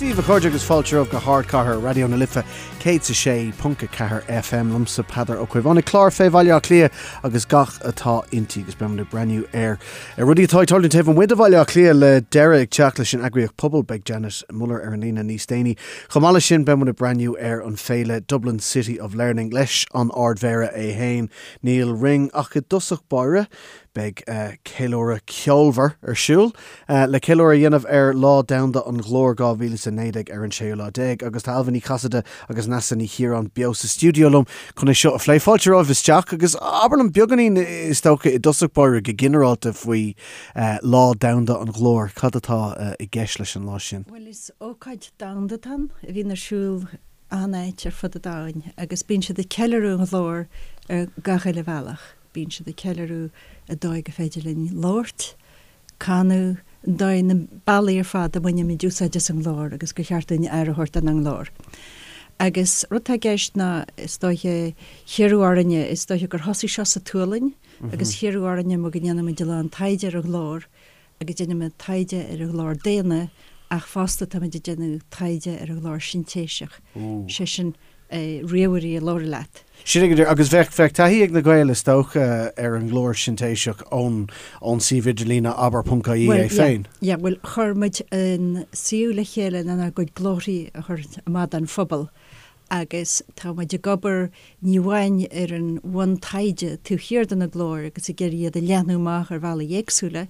Dia daoibh a chairde agus fáilte romhaibh go hArdchathair Raidió na Life 106.4 FM liomsa Peadar Ó Caomhánaigh an clár fé Bhaile Átha Cliath agus gach atá inti agus beimid ag breathnú ar rudaí atá ag tarlú taobh amuigh de Bhaile Átha Cliath le deireadh ag teacht leis an eagraíocht Pobal beidh Janet Muller ar an líne níos déanaí. Chomh maith leis sin beimid ag breathnú ar an féile Dublin City of Learning leis an Ardmhéara é féin Nial Ring ach i dtosach báire Beidh ceiliúradh ceolmhar ar siúl le ceiliúradh a dhéanamh ar Lá Domhanda an Ghlóir 2019 ar an séú lá déag agus tá Ailbhe Ní Chasaide agus Neasa Ní Chiaráin beo sa stiúideo liom chun é seo a phlé. Fáilte romhaibh isteach agus abair liom beagáinín is dócha i dtosach báire go ginearálta faoi Lá Domhanda an Ghlóir. Cad atá i gceist leis an lá sin? Bhuel is ócáid domhanda atá ann a bhíonn ar siúl achan áit ar fud an domhain agus bíonn siad ag ceiliúradh an ghlóir ar gach uile bhealach. Bíonn siad ag ceiliúradh an dóigh gur féidir linn labhairt, canadh, an dóigh, na bealaí ar fad a mbainimid úsáid as an nglór agus gur cheart dúinn aire a thabhairt don nglór. Agus rud atá i gceist ná, is dóiche, hiarradh orainne, is dóiche gur thosaigh seo sa tSualainn agus hiarradh orainne mar go ndéanaimid a lán taighde ar an ghlór agus déanaimid taighde ar an ghlór daonna ach fosta táimid ag déanamh taighde ar an ghlór sintéiseach, sé sin ríomhairí a labhraíonn leat. Sin é go díreach. Agus bheadh, bheadh taithí ag na Gaeil is dócha ar an nglór sintéiseach ón, ón suíomh idirlíne abair ponc ie é féin. Yeah, bhuel chuir muid an suíomh le chéile lenár gcuid glórthaí a chur amach don phobal agus tá muid ag obair ní amháin ar an bhuntaighde taobh thiar de na glóir agus ag iarraidh iad a leathnú amach ar bhealaí éagsúla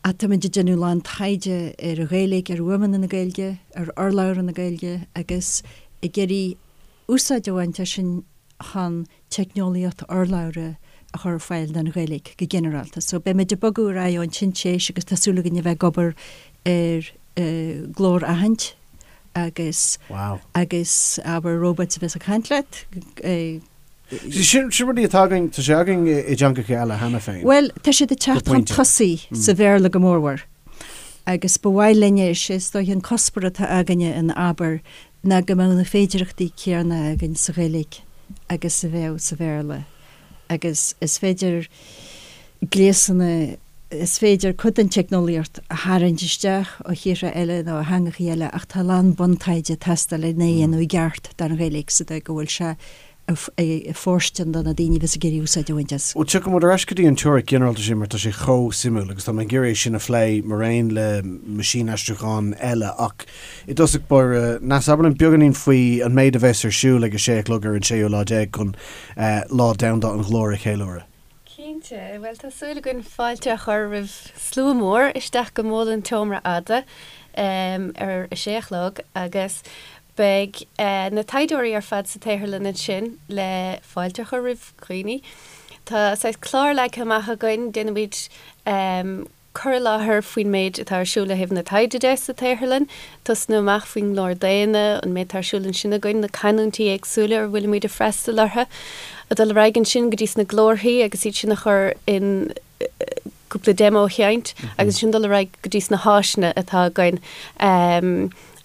ach tá muid ag déanamh a lán taighde ar an Ghaeilge, ar fhuaimeanna na Gaeilge, ar urlabhra na Gaeilge agus ag iarraidh úsáid a bhaint as sin chun teicneolaíocht urlabhra a chur ar fáil don Ghaeilge go ginearálta. So beimid ag bogadh ar aghaidh ón tsintéis agus tá súil againn a bheith ag obair ar glór-aithint agus Wow. agus abair robots a bheas ag caint leat. Sin sin rudaí atá againn, tá sé againn i dteangacha eile cheana féin. Bhuel, tá siad ag teacht chun tosaigh sa Bhéarla go mórmhór agus ba mhaith linne, is é is dóiche an cuspóir atá againne in Abair ná go mbeadh na féidearthachtaí céanna againn sa Ghaeilge agus a bheadh sa Bhéarla agus is féidir gléasanna, is féidir cuid den teicneolaíocht a tharraingt isteach ó thíortha eile nó ó theangachaí eile ach tá a lán buntaighde ag teastáil lena dhéanamh i gceart don Ghaeilge sa dóigh go bhfuil sé fóirstean do na daoine a bheas ag iarraidh úsáid a bhaint as. Bhuel, tiocfaidh muid ar ais go dtí an teoiric ghinearálta sin mar tá sé chomh suimiúil agus tá mé ag iarraidh é sin a phlé mar aon le meaisínaistriúchán eile ach i dtosach báire, Neasa, abair linn beagáinín faoi an méid a bheas ar siúl ag a sé a chlog ar an séú lá déag chun Lá Domhanda an Ghlóir a cheiliúradh. Cinnte. Bhuel, tá súil againn fáilte a chur roimh slua mór isteach go Mol an tSeomra Fhada ar a sé a chlog agus Beidh na taighdeoirí ar fad sa tsaotharlann ansin le fáilte a chur roimh dhaoine. Tá saghas clár leagtha amach againn, déanfaimid cur i láthair faoin méid atá ar siúl ó thaobh na taighde de sa tsaotharlann, tosnú amach faoin nglór daonna, an méid atá ar siúl ansin againn, na canúintí éagsúla ar bhfuilimid ag freastal orthu, ag dul ar aghaidh ansin go dtí sna glórthaí agus iad sin a chur in cúpla demo a sheinnt agus ansin dul ar aghaidh go dtí sna háiseanna atá againn.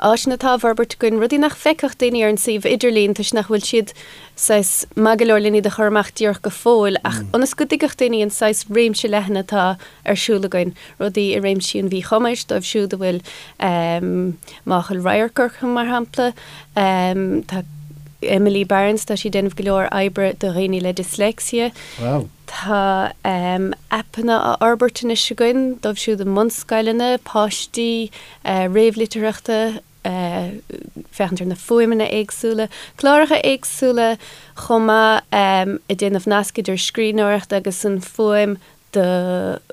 Áiseanna atá á bhforbairt againn, rudaí nach bhfeicfeadh daoine ar an suíomh idirlín toisc nach bhfuil siad saghas maith go leor len iad a chur amach díreach go fóill ach ionas go dtuigfeadh daoine an saghas réimse leathan atá ar siúl againn, rudaí i réimsí an mhíchumais dóibh siúd a bhfuil máchail radhairc orthu mar shampla. Tá Emily Barnes, tá sí ag déanamh go leor oibre do dhaoine le dyslexia. Wow. Tá aipeanna á fhorbairt anois againn dóibh siúd i mbunscoileanna, páistí réamhlitearthachta, féachaint ar na fuaimeanna éagsúla, cláracha éagsúla chomh maith ag déanamh nasc idir scríbhneoireacht agus an fuaim do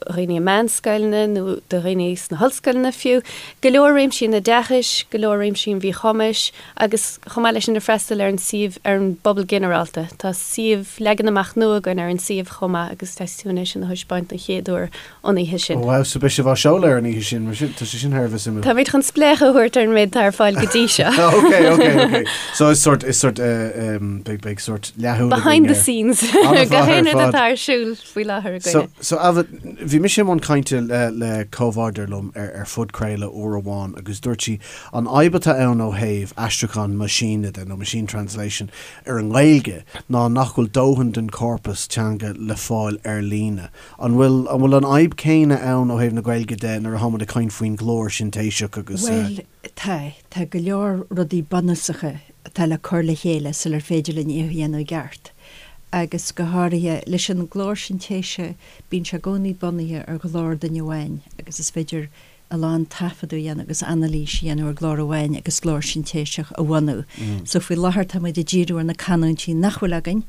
dhaoine i meánscoileanna nó do dhaoine sna hollscoileanna fiú. Go leor réimsí an oideachais, go leor réimsí an mhíchumais agus chomh maith leis sin ag freastal ar an suíomh, ar an bpobal ginearálta. Tá suíomh, leagan amach nua againn ar an suíomh chomh maith agus tá súil againn é sin a thaispeáint don chéad uair an oíche sin. Ó wow, so beidh sibh á seoladh ar an oíche sin, mar sin, tá sé sin thar a bheith suimiúil. Táimid chun spléachadh a thabhairt ar an méid atá ar fáil go dtí seo. Ok, ok, ok. So is sort, is sort, eh, em, beidh, beidh sort leathshúil againn Behind the scenes. Gach aon rud atá ar siúl faoi láthair againne. So Ailbhe, bhí mise i mbun cainte le le comhbhádóir liom ar ar phodchraoladh uair amháin agus dúirt sí an fhadhb atá ann ó thaobh aistriúchán meaisíne de, nó machine translation, ar an nGaeilge ná nach bhfuil dóthain den chorpas teanga le fáil ar líne. An bhfuil an bhfuil an fhadhb céanna ann ó thaobh na Gaeilge de nuair atá muid ag caint faoin ghlór sintéiseach agus. Bhuel, tá. Tá go leor rudaí bunúsacha atá le cur le chéile sular féidir linn é a dhéanamh i gceart. Agus go háirithe, leis an nglór sintéise, bíonn sé i gcónaí bunaithe ar ghlór duine amháin agus is féidir a lán taifeadadh a dhéanamh agus anailís a dhéanamh ar ghlór amháin agus glór sintéiseach a bhunú. So faoi láthair tá muid ag díriú ar na canúintí nach bhfuil againn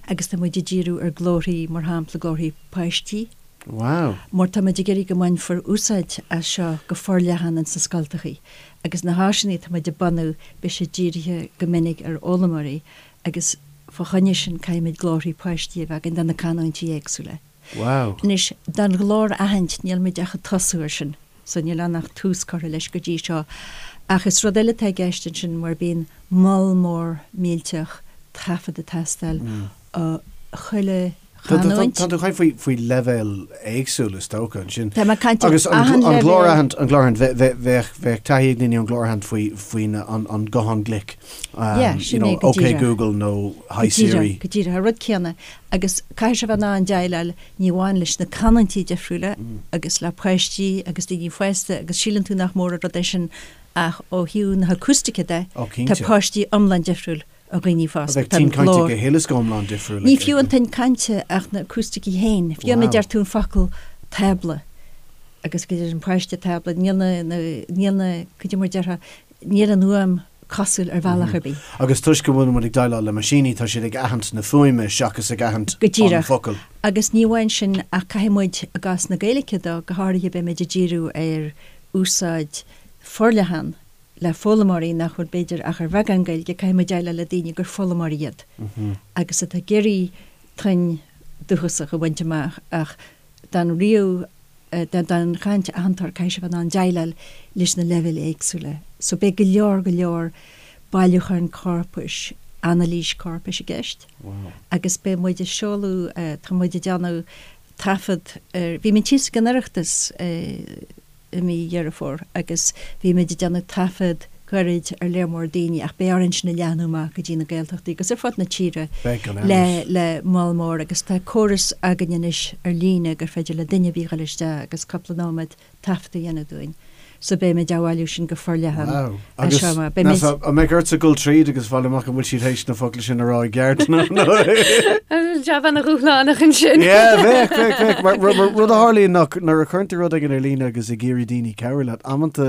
agus tá muid ag díriú ar glórthaí, mar shampla glórthaí páistí. Wow. Mar tá muid ag iarraidh go mbainfear úsáid as seo go forleathan ins na scoltachaí agus na háiseanna atá muid ag bunú beidh siad dírithe go minic ar fhoghlaimeoirí agus fá choinne sin caithfimid glórthaí páistí a bheith againn do na canúintí éagsúla. Wow. Anois, don ghlór aithint níl muid ach ag tosú air sin so níl ann ach tús curtha leis go dtí seo ach is rud eile atá i gceist ansin mar bíonn moll mór millteach taifead ag teastáil ó chuile chanúint. Tá tú ag caint faoi leibhéil éagsúla is dócha ansin. Tá mé ag caint ar Agus an an glór aithint, an glór aithint, bheadh bheadh taithí ag daoine ar an glór aithint faoi faoin an guthán glic. Yeah, sin é go díreach. OK Google nó Hi Siri. Go díreach, an rud céanna. Agus caithfidh sé bheith in ann déileáil ní amháin leis na canúintí difriúla agus le páistí agus daoine fásta agus síleann tú nach mór an rud é sin ach ó thaobh na hacústaice de, tá páistí iomlán difriúil ó dhaoine fásta. Bheadh tuin cainte go huile is go hiomlán difriúil. Ní fiú an tuin cainte ach na acústaicí féin. Fiú má deir tú an focal tábla agus go deir an páiste tábla, níl na, níl na, cad é mar déarfá, níl an fhuaim cosúil ar bhealach ar bith. Agus toisc go bhfuil muid ag déileáil le meaisíní, tá siad ag aithint na fuaime seachas ag aithint an focal. Agus ní amháin sin ach caithfidh muid, i gcás na Gaeilge dó, go háirithe beimid ag díriú ar úsáid forleathan le foghlaimeoirí nach bhfuil b'fhéidir ach ar bheagán Gaeilge, caithfidh muid déileáil le daoine gur foghlaimeoirí iad agus atá ag iarraidh tuin dúchasach a bhaint amach ach don ríomh, don chaint aitheantóir caithfidh sé bheith in ann déileáil leis na leibhéil éagsúla. So beidh go leor, go leor bailiúcháin corpais, anailís corpais i gceist agus beidh muid ag seoladh, tá muid ag déanamh taifead ar, bhí muid thíos ag an Oireachtas i, i mí Dheireadh Fómhair agus bhí muid ag déanamh taifead gairid ar léar mór daoine ach beidh orainn sin a leathnú amach go dtí na Gaeltachtaí agus ar fud na tíre le le moll mór agus tá córas againn anois ar líne gur féidir le duine ar bith dhul isteach agus cúpla nóiméad taifead a dhéanamh dúinn. So beidh muid á bhailiú sin go forleathan Wow. Agus seo amach. Beidh muid. An mbeidh ortsa dul tríd agus fáil amach an bhfuil siad théis na focla sin a rá i gceart nó nó. Jab ana-dhúshlánach ansin. Yeah, bheadh, bheadh, bheadh. Mar mar rud a tharlaíonn ná nuair a chuireann tú rud éigin ar líne agus ag iarraidh daoine cabhrú leat, amanta,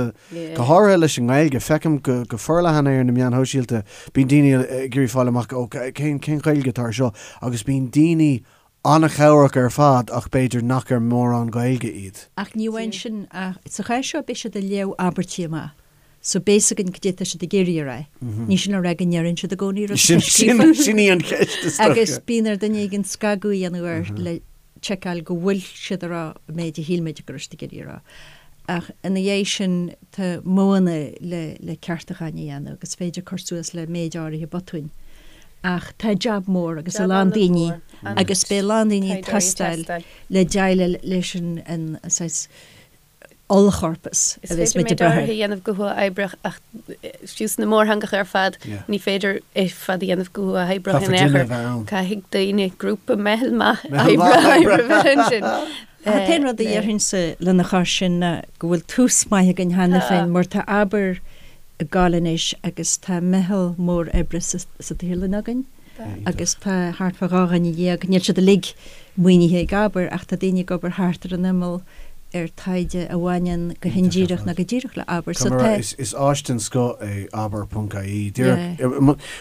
go háirithe leis an nGaeilge, feicim go go forleathan é ar na meáin shóisialta, bíonn daoine ag iarraidh fáil amach, ó, cén cén Ghaeilge atá ar seo? Agus bíonn daoine an-chabhrach ar fad ach b'fhéidir nach ar mórán Gaeilge iad. Ach ní amháin sin, ach sa chás seo beidh siad ag léamh abairtí amach so beidh fhios againn cad é atá siad ag iarraidh a rá. Ní sin le rá go ndeireann siad i gcónaí rud atá scríofa. Sin í an cheist is dócha. Agus bíonn ar duine éigin scagadh a dhéanamh air le tseiceáil go bhfuil siad ag rá an méid a shíl muid go raibh siad ag iarraidh a rá. Ach ina dhiaidh sin tá modhanna le le ceartúcháin a dhéanamh agus is féidir cur suas le méid áirithe botúin. Ach tá jab mór agus a lán daoine agus beidh a lán daoine ag teastáil le déileáil leis an saghas ollchorpas a bheas muid ag brath air. Is féidir méid áirithe a dhéanamh go huathoibríoch ach fiú sna mórtheangacha ar fad ní féidir é ar fad a dhéanamh go huathoibríoch in aon chor. Caithfidh daoine, grúpa, meitheal maith oibre a bheith ansin. An t-aon rud a déarfainnse lena chois sin ná go bhfuil tús maith againn cheana féin mar tá Abair ag gabháil anois agus tá meitheal mór oibre sa tsaotharlann againn agus tá thart fá 12 dhuine, níl siad uilig maoinithe ag Abair ach tá daoine ag obair thart ar an imeall ar taighde a bhaineann go hindíreach nó go díreach le Abair. So tá. Is áis den scoth é abair.ie. Díreach,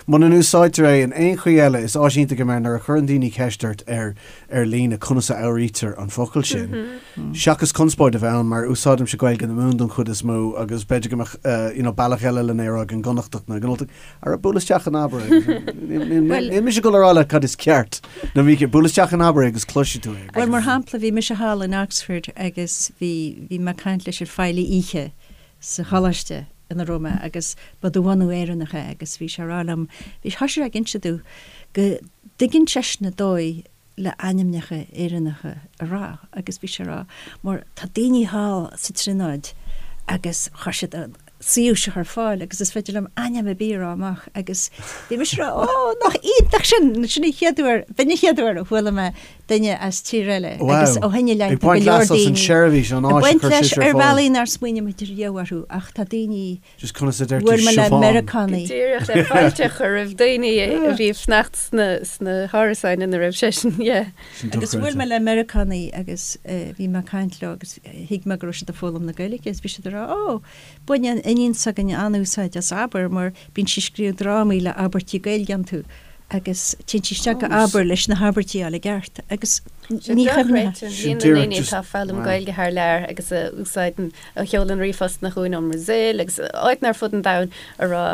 muna n-úsáidtear é in aon chaoi eile, is áis iontach é mar nuair a chuireann daoine ceist ort ar ar líne conas a fhuaimnítear an focal sin, seachas conspóid a bheith ann, mar úsáidimse Gaeilge na Mumhan don chuid is mó agus b'fhéidir go mbeadh you know bealach eile lena rá ag an gConnachtach nó ag an Ultach, ara buail isteach in Abair é. Níl mise ag dul a rá leat cad is ceart nó mícheart, buail isteach in Abair é agus cloisfidh tú é. Bhuel, mar shampla, bhí mise thall in Oxford agus bhí, bhí mé ag caint leis an feighlí oíche sa choláiste ina raibh mé agus ba de bhunadh Éireannach é agus bhí sé ag rá liom, bhí, thosaigh sé ag inse domh go dtuigeann seisean an dóigh. le ainmneacha Éireannacha a rá agus bhí sé ag rá mar tá daoine thall sa Tríonóid agus chuir siad an suíomh seo ar fáil agus is féidir liom ainm ar bith a rá amach agus bhí mise ag rá ó nach iontach sin, sin an chéad uair, b'in an chéad uair a chuala mé duine as tír eile agus ó shin i leith tá go leor daoine ag baint leis ar bhealaí nár smaoinigh muid riamh orthu ach tá daoine Just conas a deir tú Bhuail mé le Siobhán? Meiriceánaigh. Go díreach, le fáilte a chur roimh daoine a bhí ag fanacht sna hárasáin ina raibh seisean, yeah. Sin Agus bhuail dochreidte. mé le Meiriceánaigh agus bhí mé ag caint leo agus thuig mé go raibh siad ag foghlaim na Gaeilge agus bhí siad ag rá 'Ó, baineann iníon s'againne an-úsáid as Abair mar bíonn sí ag scríobh drámaí le abairtí Gaeilge iontu agus téann sí isteach go Abair leis na habairtí a fháil i gceart agus Sin ní chuimhneofá. dochreidte, líon na ndaoine atá ag foghlaim Gaeilge thar lear agus a úsáideann a sheolann ríomhphostanna chugainn ón mBrasaíl agus áiteanna ar fud an domhain a rá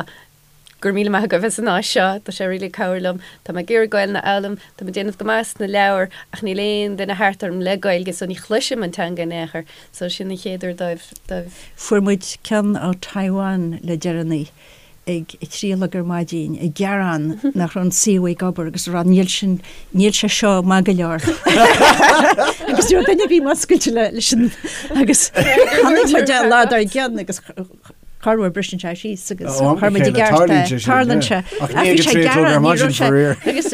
go raibh míle maith agaibh as an áis seo, tá sé really ag cabhrú liom, tá mé ag iarraidh Gaelainn a fhoghlaim, tá mé ag déanamh go maith sna leabhair ach níl aon duine thart orm le Gaeilge so ní chloisim an teanga in aon chor, so sin an chéad uair dóibh, dóibh. Fuair muid ceann ó Taiwan le deireanaí ag a 3 a chlog ar maidin ag gearán nach raibh an suíomh ag obair agus ag rá níl sin, níl sé seo maith go leor. Agus ní raibh duine ar bith múscailte leis an agus chonaic muid é an lá dár gcionn agus corruair briseann sé síos agus Ó, am chuir muid i chéile, gceart é. tarlaíonn sé sin, Tarlaíonn yeah. sé. Ach Ach ní bhí ag a sé 3 a chlog ar gearán, ní maidin raibh sé faraor. agus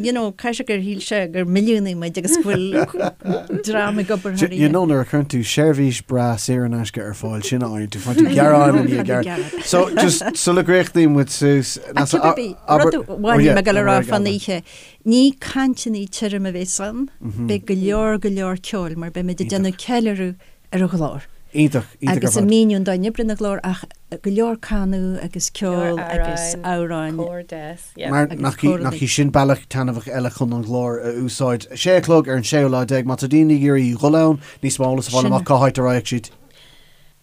you know, caithfidh sé gur shíl sé gur milliúnaigh muid agus go bhfuil dream ag obair thar You oíche. know nuair a chuireann tú seirbhís breá saor in aisce ar fáil sin a fhaigheann tú faigheann tú gearán i ndiaidh gearán. So just sula gcríochnaíonn muid suas Ach cibé ar bith, rud amháin a bhí mé ag dul a rá fán oíche, ní cainteanna tirim a bheas ann, beidh go leor go leor ceoil mar beimid ag déanamh ceiliúradh ar an ghlór. Iontach, iontach ar Agus fad. ag míniú an dóigh a n-oibríonn an glór ach go leor canadh agus ceol agus Amhráin, amhráin. cór deas, yeah. Mar Agus nach í, córanna. nach í sin bealach taitneamhach eile chun an ghlór a úsáid. Sé a chlog ar an séú lá déag, má tá daoine ag iarraidh dhul ann, níos mó eolas a fháil Sin. amach cá háit a raghadh siad.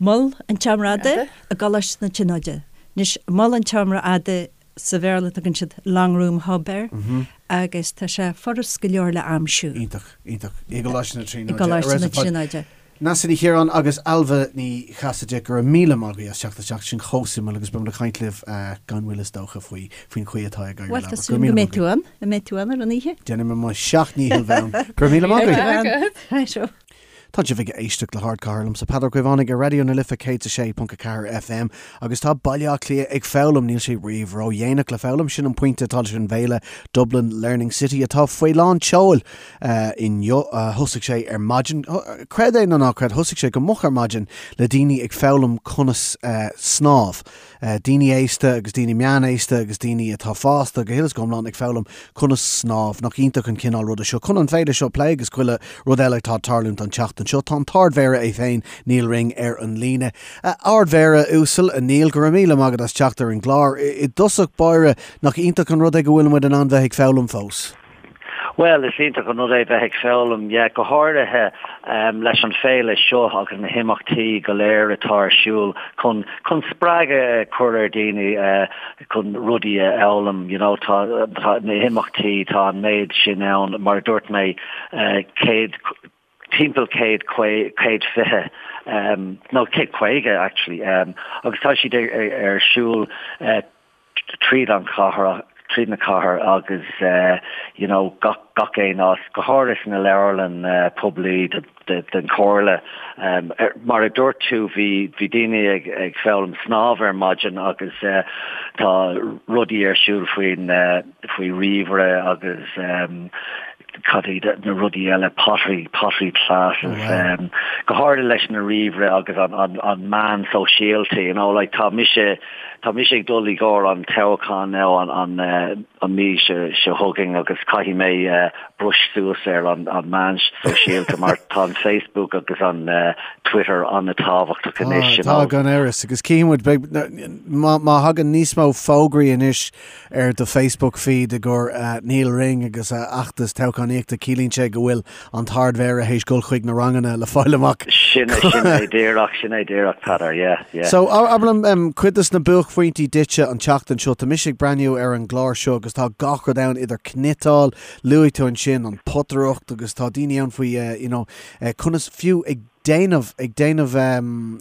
Mol an tSeomra Fhada i gColáiste na Tríonóide. Anois, Mol an tSeomra Fhada sa Bhéarla tugann siad Long Room Hub air agus tá sé furast go leor le aimsiú. Iontach, iontach. I gColáiste na I Tríonóide. gColáiste na Tríonóide. Neasa Ní Chiaráin agus Ailbhe Ní Chasaide, go raibh míle maith agaibh as teacht isteach, sin chomh suimiúil agus beidh muid ag caint libh gan mhoill is dócha faoi faoin chaoi atá ag éirí Bhuel, le tá Go raibh súil míle go maith mbeidh tú agaibh. ann, an mbeidh tú ann ar an oíche? Déanfaidh mé mo sheacht ndícheall bheith ann. Go raibh míle maith agaibh. Right, oh. Tá sibh ag éisteacht le hArdchathair liomsa Peadar Ó Caomhánaigh ar Raidió na Life 106.4 FM agus tá Baile Átha Cliath ag foghlaim, níl sé riamh ródhéanach le foghlaim, sin an pointe atá leis an bhféile Dublin Learning City atá faoi lán tseoil inniu. Thosaigh sé ar maidin, creid é nó ná creid, thosaigh sé go moch ar maidin le daoine ag foghlaim conas snámh. Daoine aosta agus daoine meánaosta agus daoine atá fásta go huile is go hiomlán ag foghlaim conas snámh. Nach iontach an cineál ruda seo. Chun an féile seo a phlé agus chuile rud eile atá ag tarlúint an tseachtain seo, tá an tArd-Mhéara é féin, Nial Ring, ar an líne. A Ard-Mhéara uasal, a Neil, go raibh míle maith agat as teacht ar an gclár. I dtosach báire, nach iontach an rud é go bhfuil muid in ann bheith ag foghlaim fós? Bhuel, is iontach an rud é bheith ag foghlaim, yeah, go háirithe leis an féile seo agus na himeachtaí go léir atá ar siúl chun chun spreagadh a chur ar dhaoine chun rudaí a fhoghlaim, you know, tá tá na himeachtaí, tá an méid sin ann, mar a dúirt mé, 100 timpeall 100 120 nó 150 actually agus tá siad ar siúl tríd an chathair, tríd na cathair agus you know gach gach aon áit, go háirithe sna leabharlann poiblí den chomhairle. Mar a dúirt tú bhí bhí daoine ag ag foghlaim snámh ar maidin agus tá rudaí ar siúl faoin faoi ríomhaire agus cad iad na rudaí eile, pottery, pottery classes, go háirithe leis na ríomhaire agus an, an, an meán sóisialta, you know, like tá mise, tá mise ag dul i gcomhair an toghchán now an, an, an mí seo, seo chugainn agus caithfidh mé brush suas ar an, an meán sóisialta mar tá an Facebook agus an Twitter an-tábhachtach anois, you Tá, know. gan amhras, agus cífidh muid, beidh, má, má thagann níos mó fógraí anois ar do Facebook feed i gcomhair Nial Ring agus a fheachtas toghchánaíochta, ciallaíonn sé go bhfuil an tArd-Mhéara théis dul chuig na ranganna le fáil amach. Sin sin é díreach, sin é díreach, Peadar, yeah, yeah. So, abair liom, cuid des na buaicphointí duitse an tseachtain seo, tá mise ag breathnú ar an gclár seo agus tá gach rud ann idir cniotáil, luaigh tú ansin an potaireacht agus tá daoine ann faoi, you know, conas fiú ag. déanamh, ag déanamh,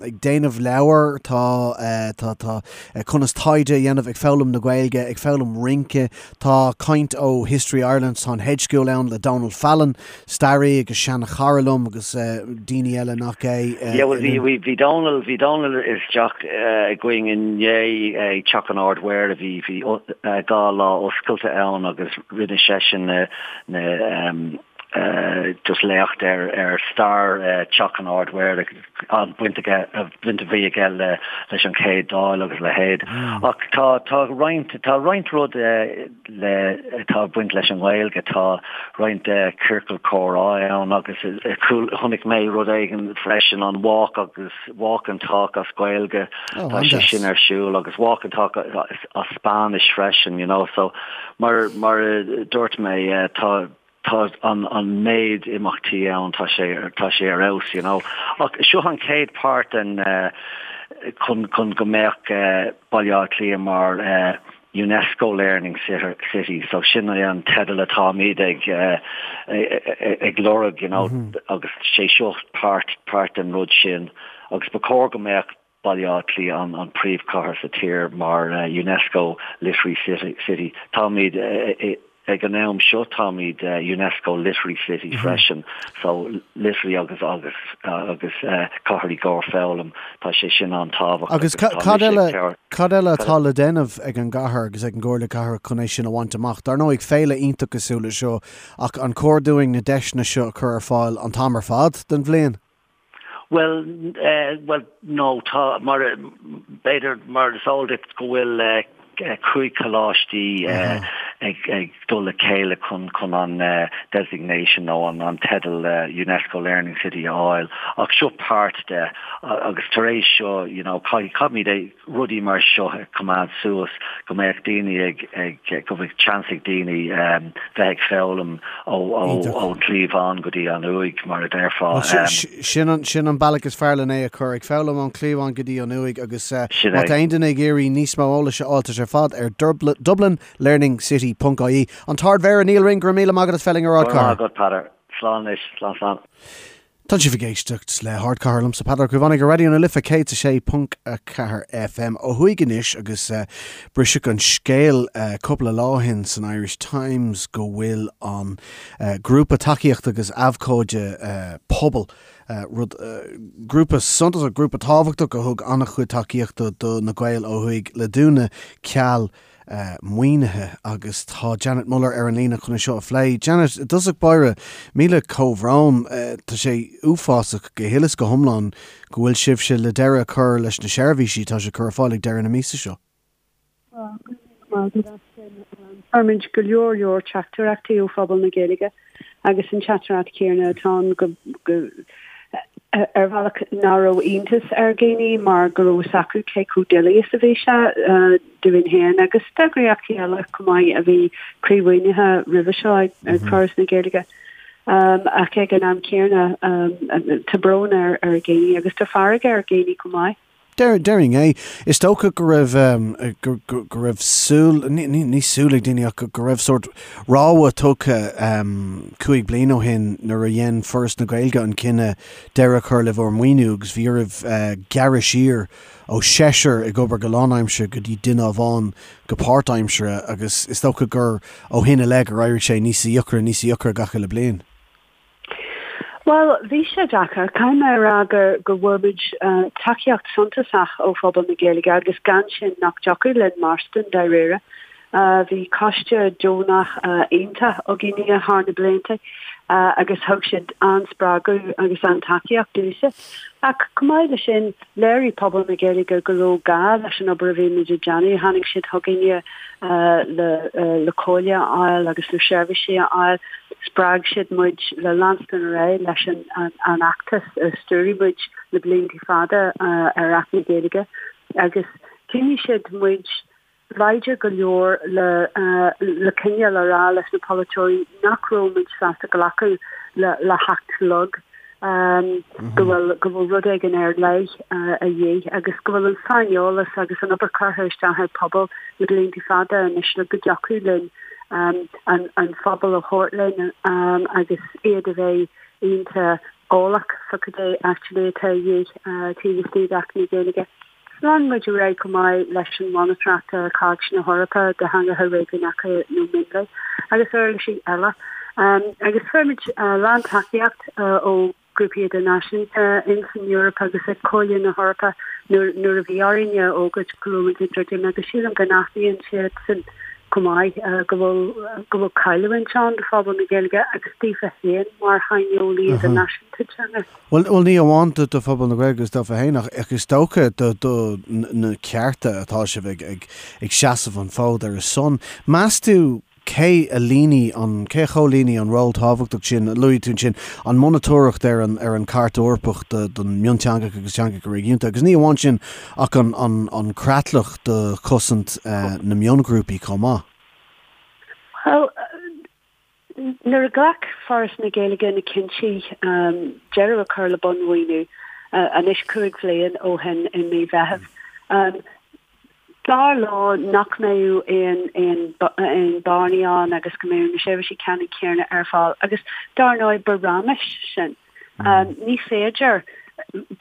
ag déanamh leabhar, tá, tá, tá conas taighde a dhéanamh, ag foghlaim na Gaeilge, ag foghlaim rince, tá caint ó History Ireland, tá an Hedge School ann le Donal Fallon, staraí agus seanchara liom agus daoine eile nach é. Yeah, well bhí, bhí, bhí Donal, bhí Donal isteach againn inné ag Teach an Ard-Mhéara, bhí, bhí 2 lá oscailte ann agus rinne seisean na, na, just léacht ar, ar stair Teach an Ard-Mhéara, an baint aige, baint a bhí aige le, leis an Chéad Dáil agus a leithéid. Ach tá, tá roinnt, tá roinnt rud le, atá ag baint leis an nGaeilge, tá roinnt ciorcal comhrá ann agus chonaic mé rud éigin freisin, an walk agus, walk and talk as Gaeilge, tá sé sin ar siúl agus walk and talk as Spáinnis freisin, you know, so mar, mar a dúirt mé, tá, tá an an méid imeachtaí ann, tá sé tá sé ar fheabhas, you know. Ach seo an chéad páirt den chun chun go mbeadh Baile Átha Cliath mar UNESCO Learning City, so sin é an teideal atáimid ag ag lorg, you know, agus sé seo páirt páirt den rud sin agus ba chóir go mbeadh Baile Átha Cliath an príomhchathair sa tír mar UNESCO Literary City. Táimid ag an am seo táimid UNESCO Literary City freisin, so literary agus agus agus cathair i gcomhair foghlaim, tá sé sin an-tábhachtach. Agus cad eile cad eile atá le déanamh ag an gcathair agus ag an gComhairle Cathrach chun é sin a bhaint amach? Dar ndóigh féile iontach cosúil le seo ach an cóir dúinn na deiseanna seo a chur ar fáil an t-am ar fad den bhliain? Bhuel, bhuel, no, tá, mar, b'fhéidir, mar is eol duit go bhfuil 5 choláistí ag, ag dul le chéile chun, chun an designation nó an, an teideal UNESCO Learning City a fháil, ach seo páirt de agus tar éis seo, you know, caithfidh, caithfimid é, rudaí mar seo a choimeád suas, go mbeadh daoine ag, ag, go mbeadh seans ag daoine bheith ag foghlaim ó, ó, ón chliabhán go dtí an uaigh, mar a déarfá. Sin an, sin an bealach is fearr len é a chur, ag foghlaim ón chliabhán go dtí an uaigh agus má tá aon duine ag iarraidh níos mó eolais a fháil tá sé ar fad ar dublinlearningcity ponc ie. An tArd-Mhéara Nial Ring, go raibh míle maith agat as bheith linn ar Ardchathair. Go raibh maith agat, Peadar. Slán anois. Slán, slán. Tá sibh ag éisteacht le hArdchathair liomsa Peadar Ó Caomhánaigh ar Raidió na Life 106.4 FM. Ó thuaidh anois agus briseadh an scéal cúpla lá ó shin san Irish Times go bhfuil an grúpa tacaíochta agus abhcóide Pobal, rud, grúpa suntasach, grúpa tábhachtach a thug an-chuid tacaíochta do na Gaeil ó thuaidh le dúnadh ceal maoinithe agus tá Janet Muller ar an líne chun é seo a phlé. Janet, i dtosach báire, míle comhbhrón. Tá sé uafásach go huile is go hiomlán go bhfuil sibhse le deireadh a chur leis na seirbhísí atá sibh ag cur ar fáil ag deireadh na míosa seo. Go raibh míle maith agat as sin. Fuair muid go leor leor teachtaireachtaí ó phobal na Gaeilge agus an teachtaireacht chéanna atá ann go go ar bhealach nach raibh iontas ar dhaoine mar go raibh fhios acu cé chomh doiligh is a bhí sé dúinn féin agus d'eagraíochtaí eile chomh maith a bhí croímhaoinithe roimhe seo ag Foras na Gaeilge. Ach ag an am céanna tá brón ar dhaoine agus tá fearg ar dhaoine chomh maith. Déarfainn é. Is dócha go raibh, go raibh súil, ní súil ag daoine ach go raibh sórt rabhadh tugtha 5 bliana ó shin nuair a dhein Foras na Gaeilge an cinneadh deireadh a chur le bhur maoiniú agus bhí oraibh gearradh siar ó sheisear ag obair go lánaimseartha go dtí duine amháin go páirtaimseartha agus is dócha gur ó shin i leith gur éirigh sé níos deacra, níos deacra gach uile bliain. Bhuel, bhí sé deacair. Caithfidh mé a rá go go bhfuair muid tacaíocht suntasach ó phobal na Gaeilge agus gan sin nach dtiocfadh linn mairstin dáiríre. Bhí coiste deonach iontach againne thar na blianta agus thug siad an-spreagadh agus an-tacaíocht dúinn. Ach chomh maith leis sin, léirigh pobal na Gaeilge go raibh gá leis an obair a bhí muid ag déanamh. Tháinig siad chugainne le comhairle a fháil agus le seirbhísí a fháil. Spreag siad muid le leanstan ar aghaidh leis an fheachtas a stiúraigh muid le blianta fada ar Acht na Gaeilge agus choinnigh siad muid láidir go leor le le coinneáil a rá leis na polaiteoirí nach raibh muid sásta glacadh le hacht lag. go bhfuil go bhfuil rud éigin ar leith a dhíth agus go bhfuil an saineolas agus an obair curtha isteach ag pobal le blianta fada anois le go dtiocfadh linn an an phobal a thabhairt linn agus iad a bheith iontach. Eolach fá cad é actually atá a dhíth taobh istigh d'Acht na Gaeilge. Lean muid ar aghaidh chomh maith leis an mhonatóireacht ar Chairt na hEorpa do Theangacha Réigiúnacha nó Mionlaigh agus uirlisí eile. Agus fuair muid a lán tacaíocht ó ghrúpaí idirnáisiúnta ins an Eoraip agus ag Comhairle na hEorpa nuair a bhí orainn a fhógairt go raibh muid ag druidim agus sílim go n-aithníonn siadsan chomh maith go bhfuil go bhfuil cailliúint ann do phobal na Gaeilge agus daofa féin mar shaineolaí idirnáisiúnta teanga. Bhuel, bhuel ní amháin do phobal na Gaeilge agus daofa féin ach ach is dócha do do na cearta atá sibh ag ag ag seasamh an fód ar a son. Meas tú cé a líonfaidh an, cé a chomhlíonfaidh an ról tábhachtach sin a luaigh tú ansin, an monatóireacht ar an, ar an Chairt Eorpach do, don mionteangacha agus teangacha réigiúnta, agus ní amháin sin ach an, an, an creatlach do chosaint na mionghrúpaí chomh maith? Bhuel, nuair a ghlac Foras na Gaeilge na cinntí deireadh a chur le bunmhaoiniú, anois 5 bhliain ó shin i mí Mheithimh, Dar leo nach mbeadh aon aon bearnaí ann agus go mbeadh na seirbhísí ceannann céanna ar fáil agus dar ndóigh ba raiméis sin. Ní féidir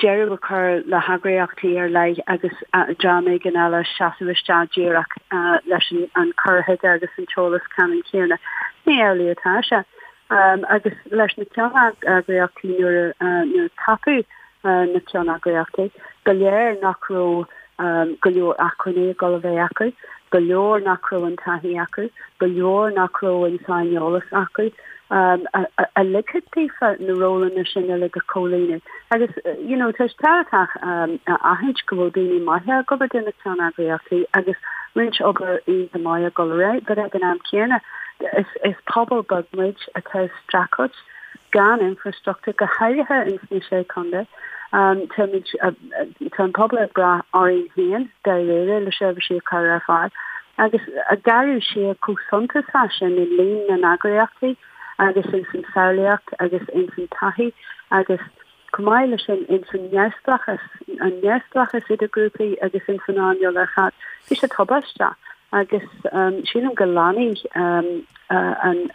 deireadh a chur le heagraíochtaí ar leith agus dream éigin eile seasamh isteach díreach leis an cur chuige agus an t-eolas ceannann céanna. Ní amhlaidh atá sé. Agus leis na ceanneagraíochtaí nuair a ceapadh na ceanneagraíochtaí, ba léir nach raibh go leor acmhainní ag dul a bheith acu, ba léir nach raibh an taithí acu, ba léir nach raibh an saineolas acu a ligfeadh daofa na rólanna sin uilig a chomhlíonadh. Agus you know tá sé tábhachtach a aithint go bhfuil daoine maithe ag obair do na ceanneagraíochtaí agus roinnt obair iontach maith ag dul ar aghaidh, but ag an am céanna is pobal beag muid atá ag streachailt gan infrastruchtúr, go háirithe ins na Sé Chontae. Táimid, tá an pobal ag brath orainn féin dáiríre le seirbhísí a chur ar fáil agus ag gearradh siar chomh suntasach sin i líon na n-eagraíochtaí agus ins an samhlaíocht agus ins an taithí agus chomh maith leis sin ins an neamhspleáchas, an neamhspleáchas idir grúpaí agus ins an earnáil ar fad. Bhí sé tubaisteach agus sílim go leanfaidh an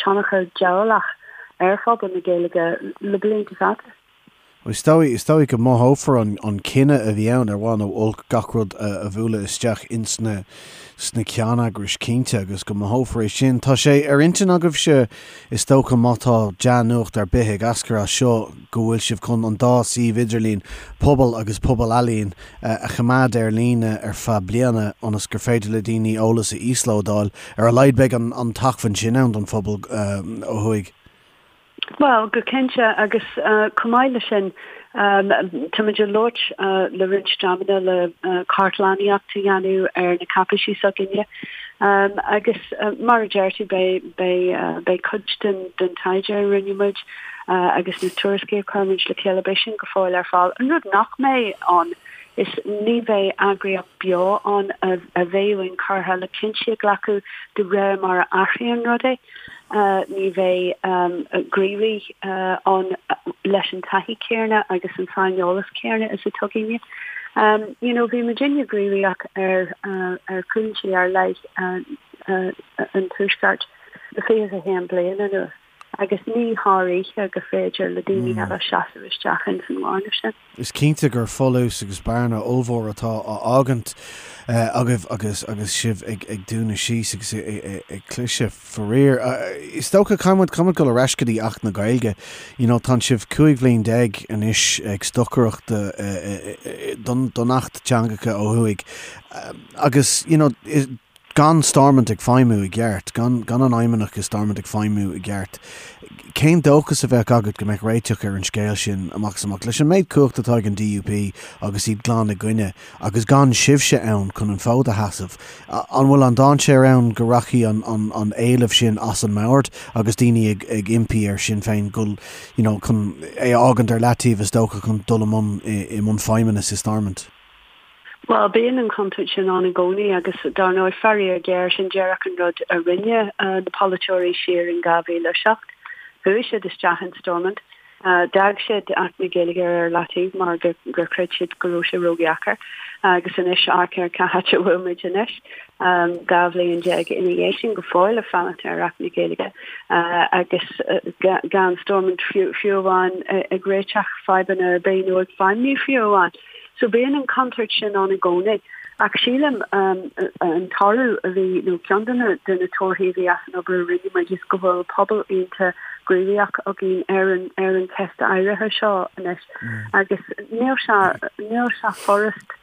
tionchar diabhalach ar phobal na Gaeilge le blianta fada. Is dóigh, is dóigh go mothófar an cinneadh a bhí ann, ar mhaith nó olc, gach rud a bhualadh isteach ins na, sna ceanneagrais, cinnte, agus go mothófar é sin. Tá sé ar intinn agaibhse, is dócha, má tá dea-nuacht ar bith ag eascair as seo, go bhfuil sibh chun an dá suíomh idirlín, Pobal agus Pobal Ealaíon, a choimeád ar líne ar feadh bliana ionas gur féidir le daoine eolas a íoslódáil. Ar a laghad beidh an t-acmhainn sin ann don phobal ó thuaidh. Bhuel, go cinnte, agus chomh maith leis sin, táimid ag labhairt le roinnt dreamanna le cartlannaíocht a dhéanamh ar na cáipéisí s'againne. Agus mar a deir tú, beidh cuid den taighde a rinne muid agus na tuairiscí a chuir muid le chéile, beidh sin go fóill ar fáil. An rud nach mbeidh ann is ní bheidh eagraíocht beo ann a bheadh inchurtha le cinntí a ghlacadh de réir mar a athraíonn rudaí. Ní bheidh gníomhaí ann leis an taithí céanna agus an saineolas céanna is atá againne. You know, bhí muidinne gníomhach ar ar chúinsí ar leith an Tuaiscirt le 21 bliain anuas agus ní thar oíche gur féidir le daoine eile seasamh isteach ins an bhearna sin. Is cinnte gur folús agus bearna ollmhór atá á fhágaint agaibh agus agus sibh ag ag dúnadh síos agus ag cliseadh, faraor. Is dócha, caithfidh muid, caithfidh muid dul ar ais go dtí Acht na Gaeilge. You know, tánn sibh 15 bhliain anois ag stocaireacht don don Acht Teangacha ó thuaidh agus, you know, Gan Stormont ag feidhmiú i gceart, gan gan an Fheidhmeannach i Stormont ag feidhmiú i gceart, cén dóchas a bheadh agat go mbeadh réiteach ar an scéal sin amach is amach? Leis an méid cumhachta atá ag an DUP agus iad glan i gcoinne, agus gan sibhse ann chun an fód a sheasamh, an bhfuil an dainséar ann go rachaidh an an an éileamh sin as an mbord agus daoine ag ag impí ar Sinn Féin dul you know chun é a fhágaint ar leataobh is dócha chun dul i mbun i mbun feidhmeannas i Stormont? Bhuel, bíonn an chontúirt sin ann i gcónaí agus, dar ndóigh, faraor géar, sin díreach an rud a rinne na polaiteoirí siar in 2007. Chuaigh siad isteach in Stormont. D'fhág siad Acht na Gaeilge ar leataobh mar gur chreid siad go raibh sé ródheacair agus anois amharc ar cá háit a bhfuil muid anois, 12 bhliain ina dhiaidh sin go fóill ag fanacht ar Acht na Gaeilge agus gan Stormont fiú amháin ag réiteach fadhbanna ar bith nó ag feidhmiú fiú amháin. So bíonn an chontúirt sin ann i gcónaí. Ach sílim an toradh a bhí, nó ceann de na de na torthaí a bhí as an obair a rinne muid is go bhfuil pobal iontach gníomhach againn ar an ar an cheist áirithe seo anois. Agus níl sé níl sé furast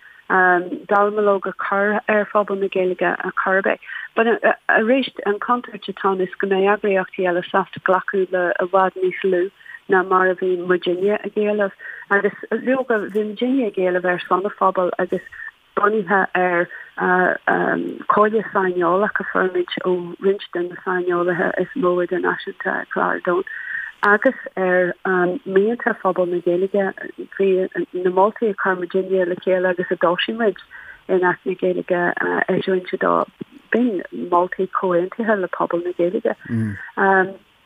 dallamullóg a chur ar phobal na Gaeilge ar chor ar bith. But arís an chontúirt atá ann is go mbeidh eagraíochtaí eile sásta glacadh le i bhfad níos lú. ná mar a bhí muidinne ag éileamh. Agus leoga, bhí muidinne ag éileamh ar son an phobail agus bunaithe ar chomhairle saineolach a fuair muid ó roinnt de na saineolaithe is mó idirnáisiúnta ar chlár domhan agus ar mhianta phobal na Gaeilge. Bhí na moltaí a chuir muidinne le chéile agus a d'fhoilsigh muid in Acht na Gaeilge Eisiúint 2, b'in moltaí comhaontaithe le pobal na Gaeilge.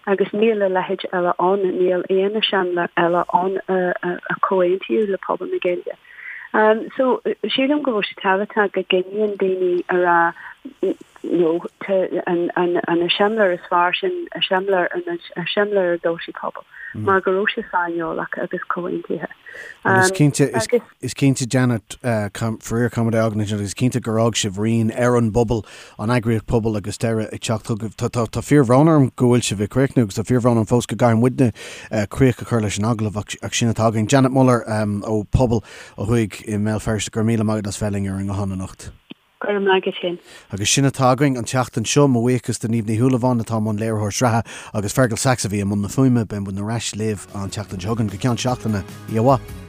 Agus níl a leithéid eile ann, níl aon eiseamláir eile ann a comhaontaíodh le pobal na Gaeilge. So, sílim go bhfuil sé tábhachtach go gcoinníonn daoine a rá no, an eiseamláir is fearr sin eiseamláir an eiseamláir a d'fhoilsigh pobal, mar go raibh sé saineolach agus comhaontaithe. Is cinnte, Is cinnte, Janet, faraor caithfidh muid é a fhágaint ansin agus is cinnte gur fhág sibh rian ar an bpobal, an eagraíocht pobal agus deireadh ag teacht chugaibh. Tá fíorbhrón orm go bhfuil sibh ag críochnú agus tá fíorbhrón orm fós go gcaithfidh muidne críoch a chur leis an agallamh ach sin atá againn. Janet Muller ó Pobal ó thuaidh i mBéal Feirste, go raibh míle maith agat as bheith linn ar an nguthán anocht. Go raibh maith agat féin. Agus sin atá againn an tseachtain seo. Mo bhuíochas do Niamh Ní Shúilleabháin atá i mbun léiritheoir sraithe agus Fergal Sachs a bhí i mbun na fuaime. Beidh muid ar ais libh an tseachtain seo chugainn go ceann seachtaine. Oíche mhaith.